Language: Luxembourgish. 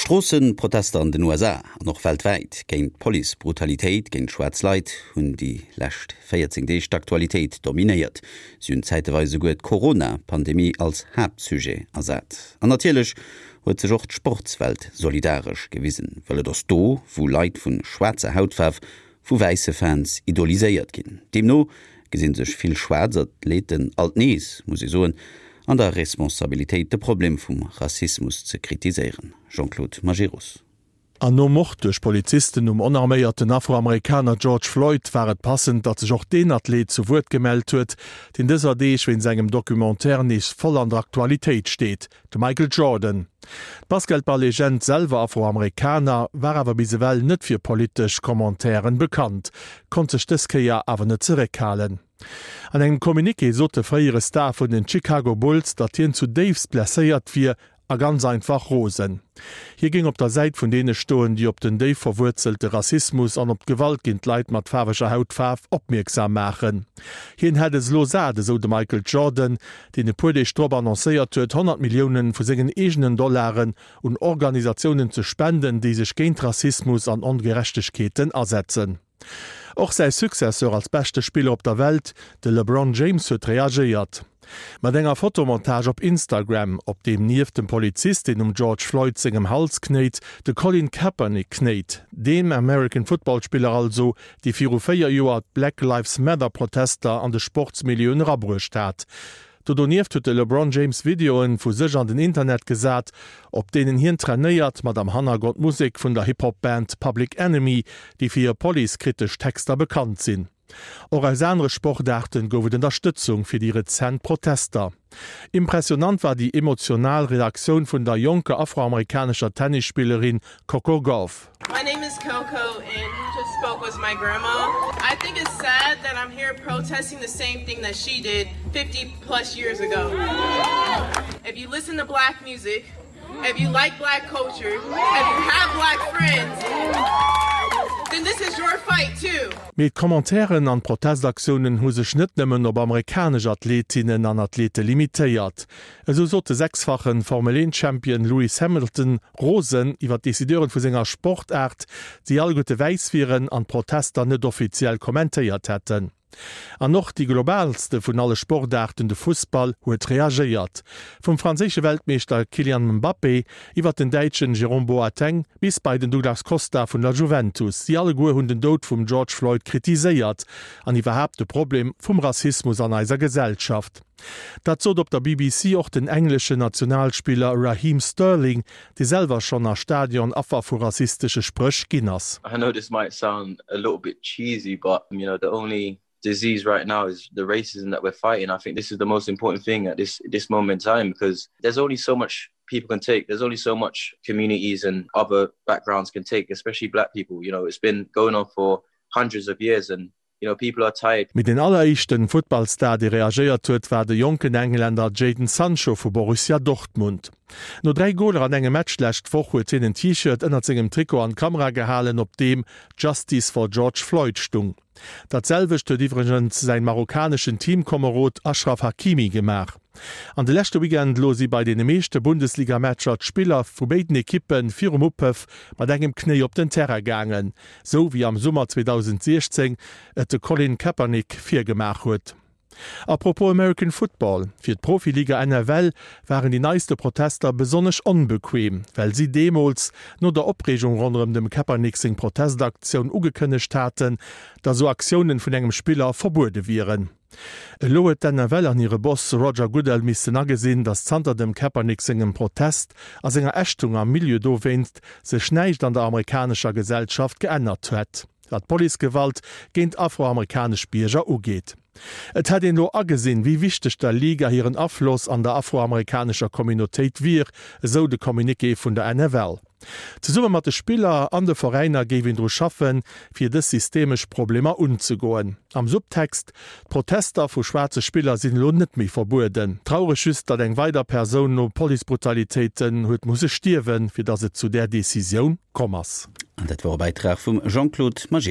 D'Stroosseprotester an den USA an och weltwäit géint d'Police-Brutalitéit géint schwaarz Leit hunn déi lescht 14 Deeg d'Aktualitéit dominéiert. Si hunn zäiteweis esouguer d'Corona-Pandemie als Haaptsujet ersat. An natierlech huet sech och d'Sportswelt solidaresch gewisen, well et ass do, wou Leit vu schwaarzer Hautfaarf vu wäisse Fans idoliséiert ginn. Deemno gesi sech vill schwaarz Athleten alt nees, muss ee soen, an der Responsabilitéit de Problem vum Rassismus ze kritiséieren. Jean-Claude Majerus. An nom Mord duerch Polizisten um onarméierten Afroamerikaner George Floyd war et passend, datt sech och deen Athlet zu Wuert gemellt huet, deen dëser Deeg wéinst engem Documentaire nees voll an der Aktualitéit steet. De Michael Jordan, d'Basketball-Legend, selwer Afroamerikaner, war awer bis ewell net fir politesch Commentairen bekannt, konnt sech dës Kéier awer net zeréckhalen. An engem Communiqué sot de fréiere Star vun den Chicago Bulls, datt hien zudéifst blesséiert wier a ganz einfach rosen. Hie géing op der Säit vun deene stoen, déi op den déif verwuerzelte Rassismus an op d'Gewalt géint Leit mat faarweger Hautfaarf opmierksam maachen. Hien hätt es elo sat, esou de Michael Jordan, deen e puer Deeg drop annoncéiert huet, 100 Millioune vu sengen eegenen Dollaren un Organisatiounen ze spenden, déi sech géint Rassismus an Ongerechtegkeeten asetzen. Och säi Successeur als beschte Spiller op der Welt, de LeBron James, huet reagéiert. Mat enger Fotomontage op Instagram, op deem nieft dem Polizist, deen um George Floyd sengem Hals knéit, de Colin Kaepernick knéit, deem American Football Spiller also, dee viru 4 Joer d'Black Lives Matter Protester an de Sportsmilieuen erabruecht hat. Do donieft huet de LeBron James Videoen vu sech an den Internet gesat, op deenen hien trainéiert, mat am Hannergrond Musek vun der Hip-Hop-Band Public Enemy, déi fir hir police-kritesch Texter bekannt sinn. Och aus anere Sportaarten gouf et Ënnerstëtzung fir déi rezent Protester. Impressionant war déi emotional Reaktioun vun der jonker afroamerikanescher Tennisspillerin Coco Gauff. My name is Coco and who just spoke was my grandma. I think it's sad that I'm here protesting the same thing that she did 50 plus years ago. If you listen to black music, if you like black culture, if you have black friends, then this is your fight too. Mee d'Commentairen an d'Protestaktiounen hu sech net nëmmen op amerikanesch Athletinnen an Athlete limitéiert. Esou sot de sechsfache Formel-Eent-Champion Lewis Hamilton rosen iwwer d'Decideuren vu senger Sportaart, déi alleguerte wäiss wieren an d'Protester net offiziell kommentéiert hätten. An och déi globaalste vun alle Sportaarten, de Fussball, huet reagéiert. Vum franséische Weltmeeschter Kylian Mbappé iwwer den Däitschen Jérôme Boateng bis bei den Douglas Costa vun der Juventus, si alleguer hunn den Doud vum George Floyd kritiséiert an iwwerhaapt de Problem vum Rassismus an eiser Gesellschaft. Dat sot op der BBC och den engleschen Nationalspiller Raheem Sterling, dee selwer schonn a Stadion Affer vu rassistesche Spréch ginn ass. I know this might sound a little bit cheesy but you know the only disease right now is the racism that we're fighting. I think this is the most important thing at this this moment in time because there's only so much people can take. There's only so much communities and other backgrounds can take, especially black people. You know, it's been going on for hundreds of years and you know people are tired. Mee deen alleréischten Futtballstar, dee reagéiert huet, war de jonken Englänner Jadon Sancho vu Borussia Dortmund. No 3 Goler an engem Match d'lescht Woch huet hien en T-Shirt ënnert sengem Trikot an d'Kamera gehalen, op deem Justice for George Floyd stung. Dat selwecht huet iwwregens säin marokkaneschen Teamkomerod Achraf Hakimi gemaach. An de leschte Weekend elo si bei deene meeschte Bundesligamatcher d'Spiller vu béiden Ekippe virum Upëff mat engem Knéi op den Terrain gaangen. Sou wéi am Summer 2016 et de Colin Kaepernick virgemaach huet. A propos American Football, Fir d'Profiliga NFL waren déi neiste Protester besonnesch onbequem, well si deemools, no der Opreegung ronderëm dem Kaepernick seng Protestaktioun, ugekënnegt haten, datt sou Aktiounen vun engem Spiller verbuede wieren. Elo huet d'NFL an hire Boss Roger Goodell missten agesinn, datt zanter dem Kaepernick sengem Protest a senger Ächtung am Milieu dowéinst sech näischt an der amerikanescher Gesellschaft geännert hätt, wat d'Policegewalt géint afroamerikanesch Bierger ugeet. Et hätt een elo agesinn, wéi wichteg der Liga hiren Afloss an der afroamerikanescher Communautéit wier, esou de Communiqué vun der NFL. Zesumme mat de Spiller an de Veräiner géif een dru schaffen, fir dës systemesch Problemer unzegoen. Am Subtext, D'Protester vu schwaarze Spiller sinn elo net méi verbueden. Traureg just, datt eng weider Persoun no Policebrutalitéiten huet musse stierwen, fir datt et zu där Decisioun komm ass. An dat wor e Bäitrag vum Jean-Claude Majerus.